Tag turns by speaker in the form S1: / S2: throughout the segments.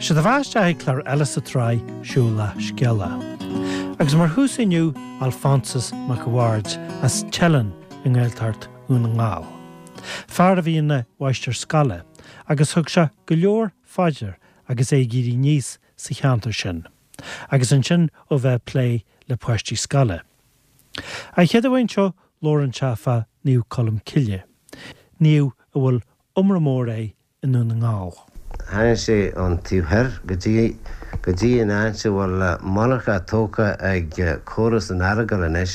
S1: Sé do bheatha isteach ag clár eile sa tsraith Siúlach Scéalach. Agus mar thús inniu, Alphonsus Mac a' Bhaird as Teileann i nGaeltacht Dhún na nGall. Fear a bhí ina mháistir scoile agus thug sé go leor phaidir agus é ag éirí aníos sa cheantar sin, agus ansin ó bheith ag plé le páistí scoile. An chéad uair seo labhrann sé fá Naomh Colm Cille, naomh a bhfuil iomrá mór air i nDún na nGall.
S2: Tháinig sé ón taobh thoir go dtí go dtí an áit a bhfuil monarcha tógtha ag córas an Earagail anois,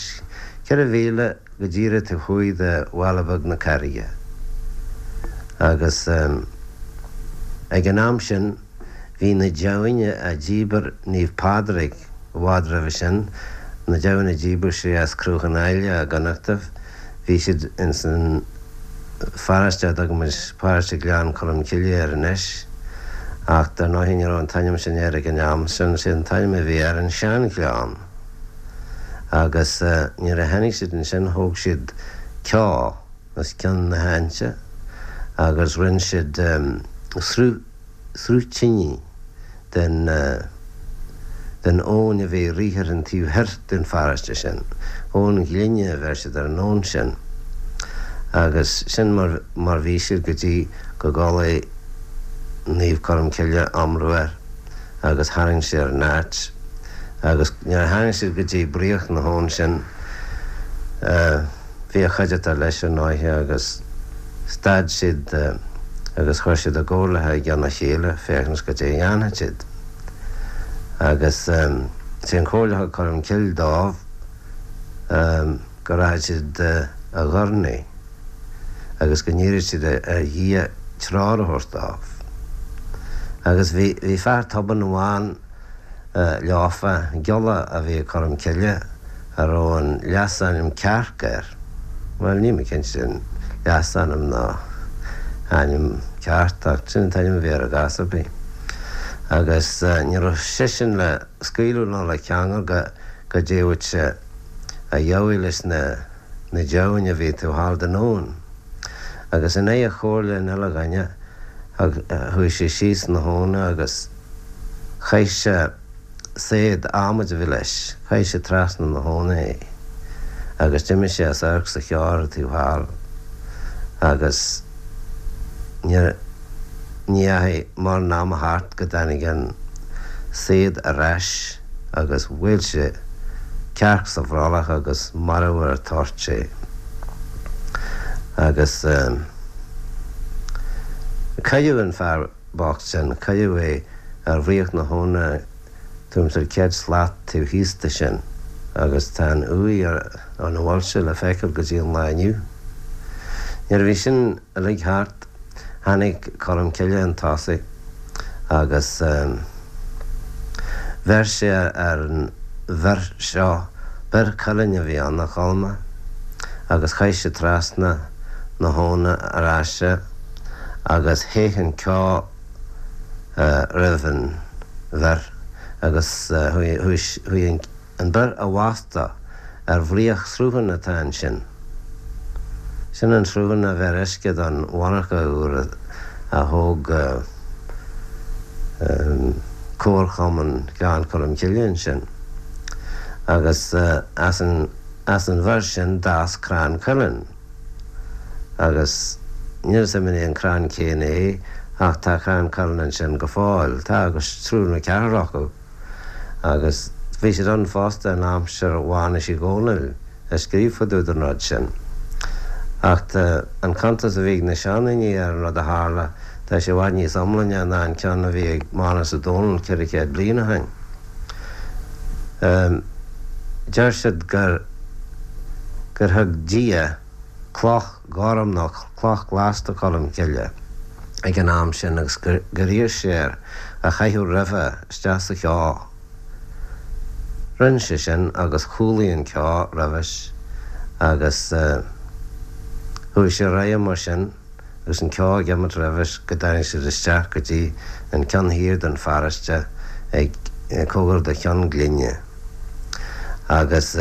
S2: 4 mhíle go díreach taobh thuaidh de Bhaile Beag na Carraige. Agus ag an am sin bhí na deamhain a dhíbir Naomh Pádraig i bhfad roimhe sin, na deamhain a dhíbir sé as Cruachan Áille i gConnachtaibh, Bhí siad ins an pharáiste a dtugaimid Paráiste Ghleann Cholm Cille air anois, ach dar ndóighe ní raibh an t-ainm sin air ag an am sin, sé an t-ainm a bhí air an Sean-Ghleann. Agus nuair a tháinig siad ansin thóg siad ceo os cionn na háite agus rinn siad sruth, sruth tine den den abhainn a bhí ag rith ar an taobh thoir den pharáiste sin. Abhainn Ghlinne a bheir siad ar an abhainn sin. Agus sin mar mar bhí siad go dtí go gcualaidh Naomh Colm Cille iomramh air agus tharraing sé ar an áit. Agus nuair a tháinig siad go dtí bruach na habhann sin bhí a chuideachta leis ar ndóighe agus stad siad agus chuir siad a gcomhairleacha i gcionn a chéile féachaint goidé a dhéanfadh siad. Agus sé an chomhairle a thug Colm Cille dóibh go rachadh siad a dh'urnaí agus go n-iarrfadh siad ar Dhia treoir a thabhairt dóibh. Agus bhí fear tobann amháin leofa, giolla a bhí ag Colm Cille a raibh an leasainm Cearc air. Bhuel, níl mé cinnte an leasainm nó ainm ceart ach sin an t-ainm a bhí air i gcás ar bith. Agus ní raibh seisean le scaoileadh ná le ceangal go go dtéadh sé a dheabhaidh leis na na deamhain a bhí taobh thall den abhainn. Agus in aghaidh chomhairle an uile dhuine, chuaigh sé síos na habhna agus Chaith sé saighead adhmaid a bhí leis, chaith sé trasna na habhna é agus d'imigh sé as amharc sa cheo ar an taobh thall agus ní dheachaigh mórán ama thart go dtáinig an saighead ar ais agus bhuail sé cearc sa bhrollach agus marbh ar an toirt é. Agus cailleadh an fear. bocht sin. Cailleadh é ar bhruach na habhna tuairim is ar 100 slat taobh thíos de sin agus tá an uaigh ina bhfuil sé le feiceáil go dtí an lá inniu. Nuair a bhí sin uilig thart tháinig Colm Cille chun tosaigh agus bheir sé ar an bhior seo, bior cuilinn a bhí ann, a Cholma, agus chaith sé trasna na habhna ar ais é. agus théith an ceo roimh an bhior agus chuaigh an bior i bhfostú ar bhraoch srutháin atá ansin. Sin an sruthán a bheir uisce don mhonarcha uair a thóg Comharchumann Ghleann Cholm Cille ansin. Agus as an bhior sin d'fhás crann cuilinn. Agus níl 'fhios a'm an é an crann céanna é ach tá crann cuilinn ansin go fóill. Tá agus triúr nó ceathrar acu. Agus bhí siad ann fosta in aimsir Mhánais Uí Dhónaill a scríobh fá dtaobh den rud sin. Ach tá an cuntas a bhí ag na seandaoine ar an rud a tharla, tá sé i bhfad níos iomláine ná an ceann a bhí ag Mánus Ó Dónaill 400 bliain ó shin. Deir siad gur gur thug Dia cloch ghorm nó cloch ghlas do Cholm Cille ag an am sin agus gur iarr sé air a chaitheamh roimhe isteach sa cheo. Rinne sé sin agus chúlaigh an ceo roimhis agus chuaigh sé ar aghaidh mar sin. agus an ceo ag imeacht roimhis go dtáinig siad isteach go dtí an ceann thiar den pharáiste ag cóngar do Cheann Glinne. Agus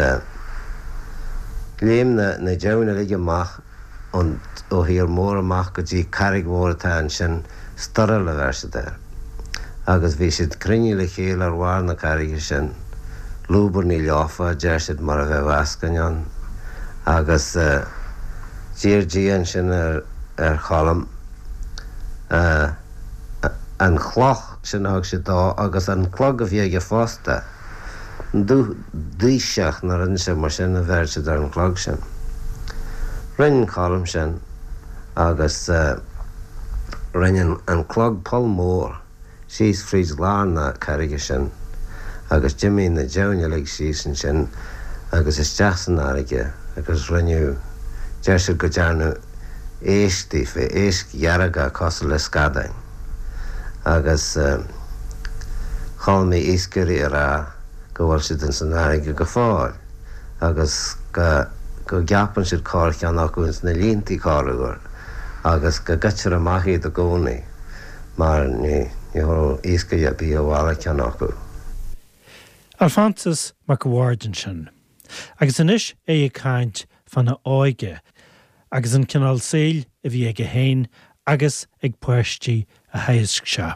S2: léim na na deamhain uilig amach ón ó thír mór amach go dtí carraig mhór atá ansin, Storail a bheir siad air. Agus bhí siad cruinnithe le chéile ar bharr na carraige sin, lúbarnaigh leofa, a deir siad, mar a bheadh eascainn ann. Agus d'iarr Dia ansin ar Cholm an chloch sin a thug siad dó agus an clog a bhí aige fosta, dúdhaoiseach nó rud inteacht mar sin a bheir siad ar an chlog sin. Rinne Colm sin agus rinne an clog poll mór síos fríd lár na carraige sin agus d'imigh na deamhain uilig síos ansin agus isteach san fharraige agus rinneadh, deir siad go dtearnadh éisc daofa, éisc dhearga cosúil le scadáin. Agus chuala mé iascairí ag rá go bhfuil siad ins an fharraige go fóill agus go go gceapann siad corrcheann acu ins na líontaí corruair agus go gcuirtear amach iad i gcónaí mar ní ní thabharfadh iascaire ar bith abhaile ceann acu.
S1: Alphonsus Mac a' Bhaird ansin. Agus anois é ag caint fána óige agus an cineál saoil a bhí aige féin agus ag páistí a theagasc sé.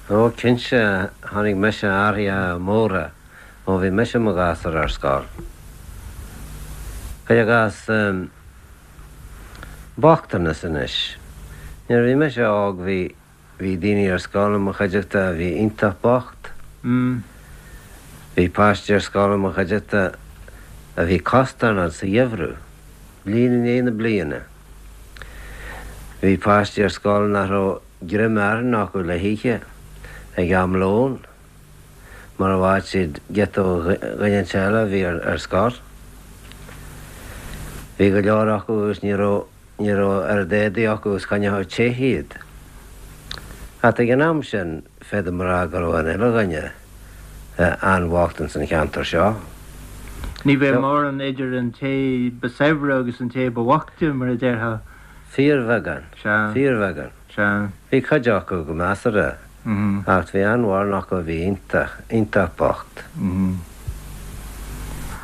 S2: Ó, cinnte, chonaic mise athruithe móra ó bhí mise i mo ghasúr ar scoil. Cuir i gcás, bochtanas anois. Nuair a bhí mise óg bhí. Bhí daoine ar scoil i mo chuideachta a bhí iontach bocht. Bhí páistí ar scoil i mo chuideachta a bhí costarnocht sa gheimhreadh, bliain i ndiaidh na bliana. Bhí páistí ar scoil nach raibh greim aráin acu le hithe ag am lóin, mura bhfaigheadh siad giota ó dhuine inteacht eile a bhí ar scor. Bhí go leor acu agus ní raibh. Ní raibh oiread éadaí acu is choinneodh te iad. Ach ag an am sin, féadaim a rá go raibh an uile dhuine an-bhocht ins an cheantar seo.
S3: Ní bheadh mórán idir an té ba saibhre agus an té ba bhoichte, mar a déarfá.
S2: Fíorbheagán.
S3: Sea.
S2: Fíorbheagán.
S3: Sea.
S2: Bhí cuid acu go measartha. Ach bhí an-mhórán acu a bhí iontach, iontach bocht.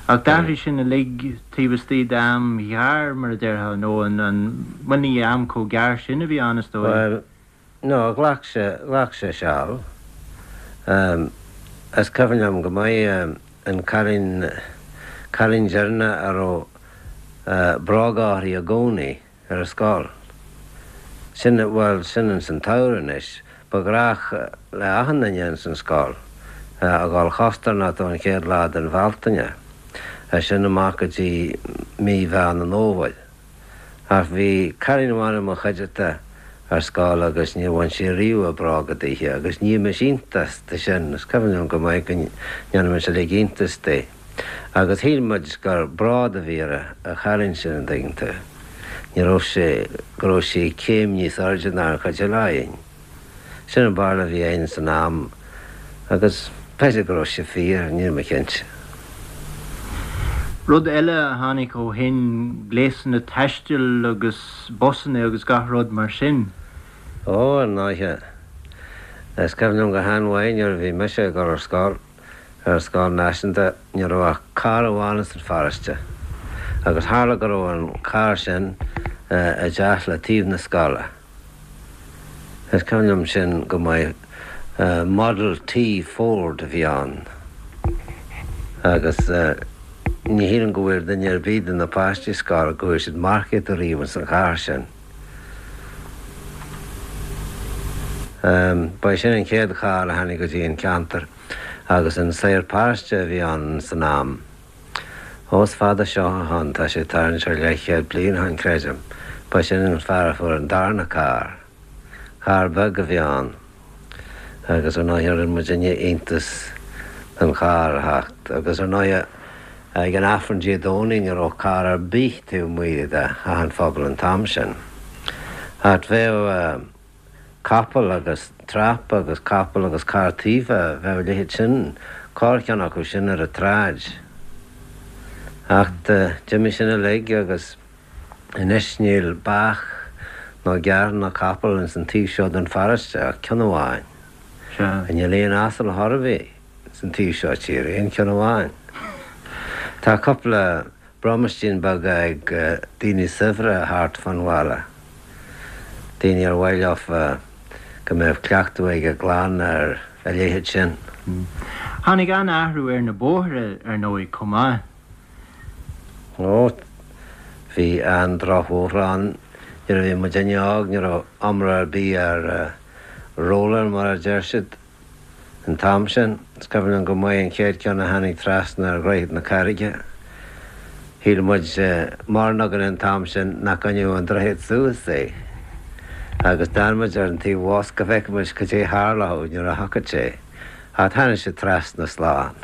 S3: Ach d'athraigh sin uilig taobh istigh d'am ghearr, mar a déarfá, nó an, an, bhuel ní am chomh gearr sin a bhí ann, is dóigh.
S2: Bhuel, no, ghlac sé, ghlac sé seal. Is cuimhin liom go maith an cailín, cailín deireanach a raibh bróga uirthi i gcónaí. ar an scoil. Sin, bhuel, sin ins an tsamhradh anois. Ba ghnách le achan duine ins an scoil a dhul chostarnocht ón chéad lá den Bhealtaine, as sin amach go dtí mí Mheán an Fhómhair. Ach bhí cailín amháin i mo chuideachta ar scoil agus níor bhain sí riamh a bróga daoithe agus nímis iontas de sin, is cuimhin liom go maith go ndéanadh muid uilig iontas di. Agus shíl muid gur bród a bhí ar an chailín sin, an dtuigeann tú. Ní raibh sé, go raibh sí céim níos airde ná an chuid eile againn. Sin an barúil a bhí againn san am agus b'fhéidir go raibh sé fíor, níl mé cinnte.
S3: Rud eile a tháinig ó shin, gléasanna taistil agus busanna agus gach rud mar sin.
S2: Ó, ar ndóighe. Is cuimhin liom go han-mhaith nuair a bhí mise ag dul ar scoil. Ar an scoil náisiúnta ní raibh ach carr amháin ins an pharóiste agus tharla go raibh an carr sin i dteach le taobh na scoile. Is cuimhin liom sin go maith. Model T Ford a bhí ann agus ní shílim go bhfuair duine ar bith de na páistí scoile go bhfuair siad marcaíocht ariamh ins an charr sin. Ba é sin an chéad charr a tháinig go dtí an ceantar agus an saor paróiste a bhí ann san am. Ó is fada seo ó shoin, tá sé tarraingt ar leathchéad bliain ó shoin creidim, ba sin an fear a fuair an darna carr. Carr beag a bhí ann agus ar ndóighe rinne muidinne iontas den charr a theacht agus ar ndóighe Ag an Aifreann Dé Domhnaigh ní raibh carr ar bith taobh amuigh de theach an phobail an t-am sin. Ach bheadh capall agus trap agus capall agus carr taoibhe, bheadh a leithéid sin, corrcheann acu sin ar an tsráid. Ach d'imigh sin uilig agus anois níl beach ná gearr ná capall ins an taobh seo den pharóiste ach ceann amháin.
S3: Sea.
S2: Níl aon asal chor ar bith. san taobh seo tíre, aon cheann amháin. Tá cúpla bromaistín beaga ag daoine saibhre thart fán bhaile, daoine ar mhaith leofa. Go mbeadh cleachtadh ag a gclann ar a leithéid sin.
S3: Tháinig an-athrú ar na bóithre, ar ndóigh, chomh maith.
S2: Ó, bhí an-drochbhóithre ann nuair a bhí muidinne óg, ní raibh iomrá ar bith ar roller mar a deir siad. An t-am sin, is cuimhin liom go maith an chéad ceann a tháinig trasna ar Dhroichead na Carraige. Shíl muid, mórán againn an t-am sin, nach gcoinneodh an droichead suas é. Agus d'fhan muid ar an taobh abhus go bhfeicfeadh muid cad é a tharlódh nuair a thiocfadh sé. Ach tháinig sé trasna slán.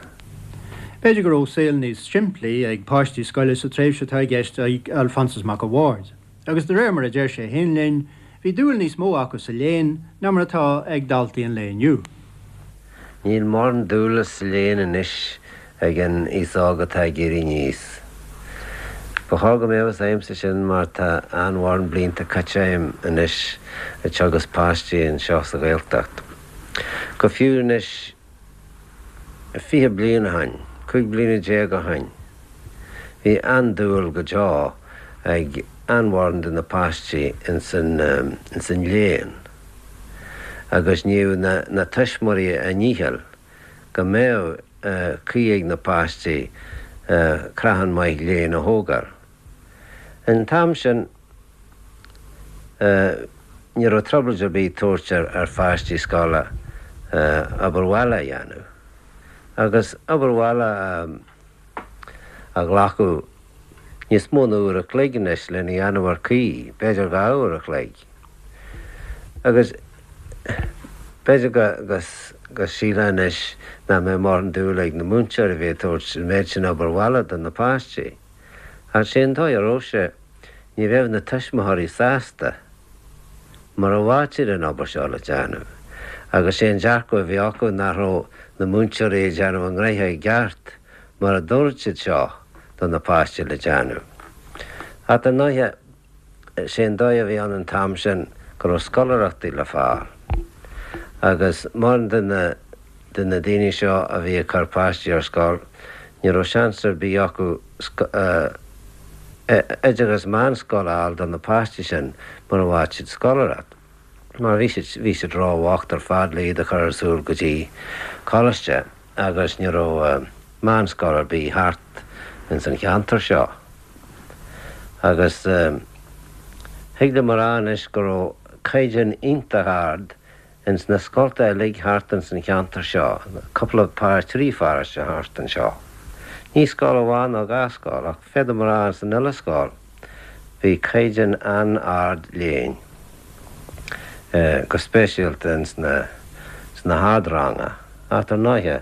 S3: B'fhéidir go raibh saol níos simplí ag páistí scoile sa tréimhse atá i gceist ag Alphonsus Mac a' Bhaird. Agus de réir mar a deir sé féin linn, bhí dúil níos mó acu sa léann ná mar atá ag daltaí an lae inniu.
S2: Níl mórán dúile sa léann anois ag an aos óg atá ag éirí aníos. Ba chóir go mbeadh fhios agamsa sin mar tá an-mhórán blianta caite agam anois ag teagasc páistí anseo sa Ghaeltacht. Go fiú anois 20 bliain ó shoin, 15 bliana ó shoin, bhí an-dúil go deo ag an-mhórán de na páistí ins an léann agus dhéanadh na tuismitheoirí a ndícheall go mbeadh caoi ag na páistí creathán maith léinn a thógáil. An t-am sin ní raibh trioblóid ar bith tabhairt ar pháistí scoile obair bhaile a dhéanamh. Agus obair bhaile a ghlacadh níos mó ná uair a chloig anois lena dhéanamh ar caoi, b'fhéidir 2 uair a chloig. Agus b'fhéidir go sílfeá anois nach mbeadh mórán dúil ag na múinteoirí a bheith ag tabhairt an méid sin obair bhaile do na páistí. Ach sé an dóigh a raibh sé, ní bheadh na tuismitheoirí sásta mura bhfaigheadh siad an obair seo le déanamh. Agus sé an dearcadh a bhí acu nach raibh na múinteoirí ag déanamh a ngnoithe i gceart mura dtabharfadh siad seo do na páistí le déanamh. Ach dar ndóighe, sé an dóigh a bhí ann an t-am sin go raibh scoláireachtaí le fáil. Agus mórán de na de na daoine seo a bhí ag cur páistí ar scoil, ní raibh seans ar bith acu oideachas meánscoile a fháil do na páistí sin mura bhfaigheadh siad scoláireacht, mar bhí siad bhí siad róbhocht ar fad le iad a chur ar siúl go dtí coláiste agus ní raibh meánscoil ar bith thart ins an cheantar seo. Agus thig liom a rá anois go raibh caighdeán iontach ard Ins na scolta uilig thart ins an cheantar seo, cúpla par 3 pharóiste thart anseo. Ní scoil amháin nó dhá scoil, ach féadaim a rá ins an uile scoil, bhí caighdeán an-ard léinn, go speisialta ins na sna hardranga. Ach dar ndóighe,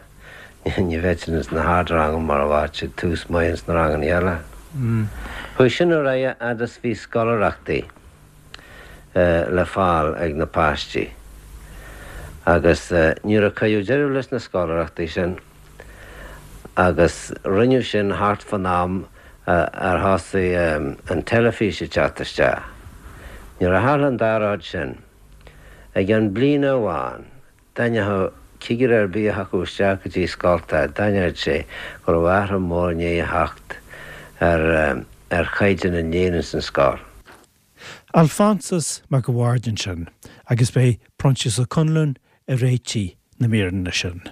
S2: ní bheadh siad ins na hardranga mura bhfaigheadh siad tús maith ins na ranganna eile. Chuaigh sin ar aghaidh fhad is bhí scoláireachtaí. le fáil ag na páistí agus nuair a cuireadh deireadh leis na scoláireachtaí sin agus rinneadh sin thart fán am ar thosaigh an teilifís ag teacht isteach. Nuair a tharla an dá rud sin, i gceann bliana amháin, D'aithneodh cigire ar bith a thiocfadh isteach go dtí scolta, d'aithneodh sé go raibh athrú mór i ndiaidh a theacht ar ar chaighdeán an léinn ins an scoil.
S1: Alphonsus Mac a' Bhaird ansin agus b'é Proinsias Ó Conluain a réitigh na míreanna sin.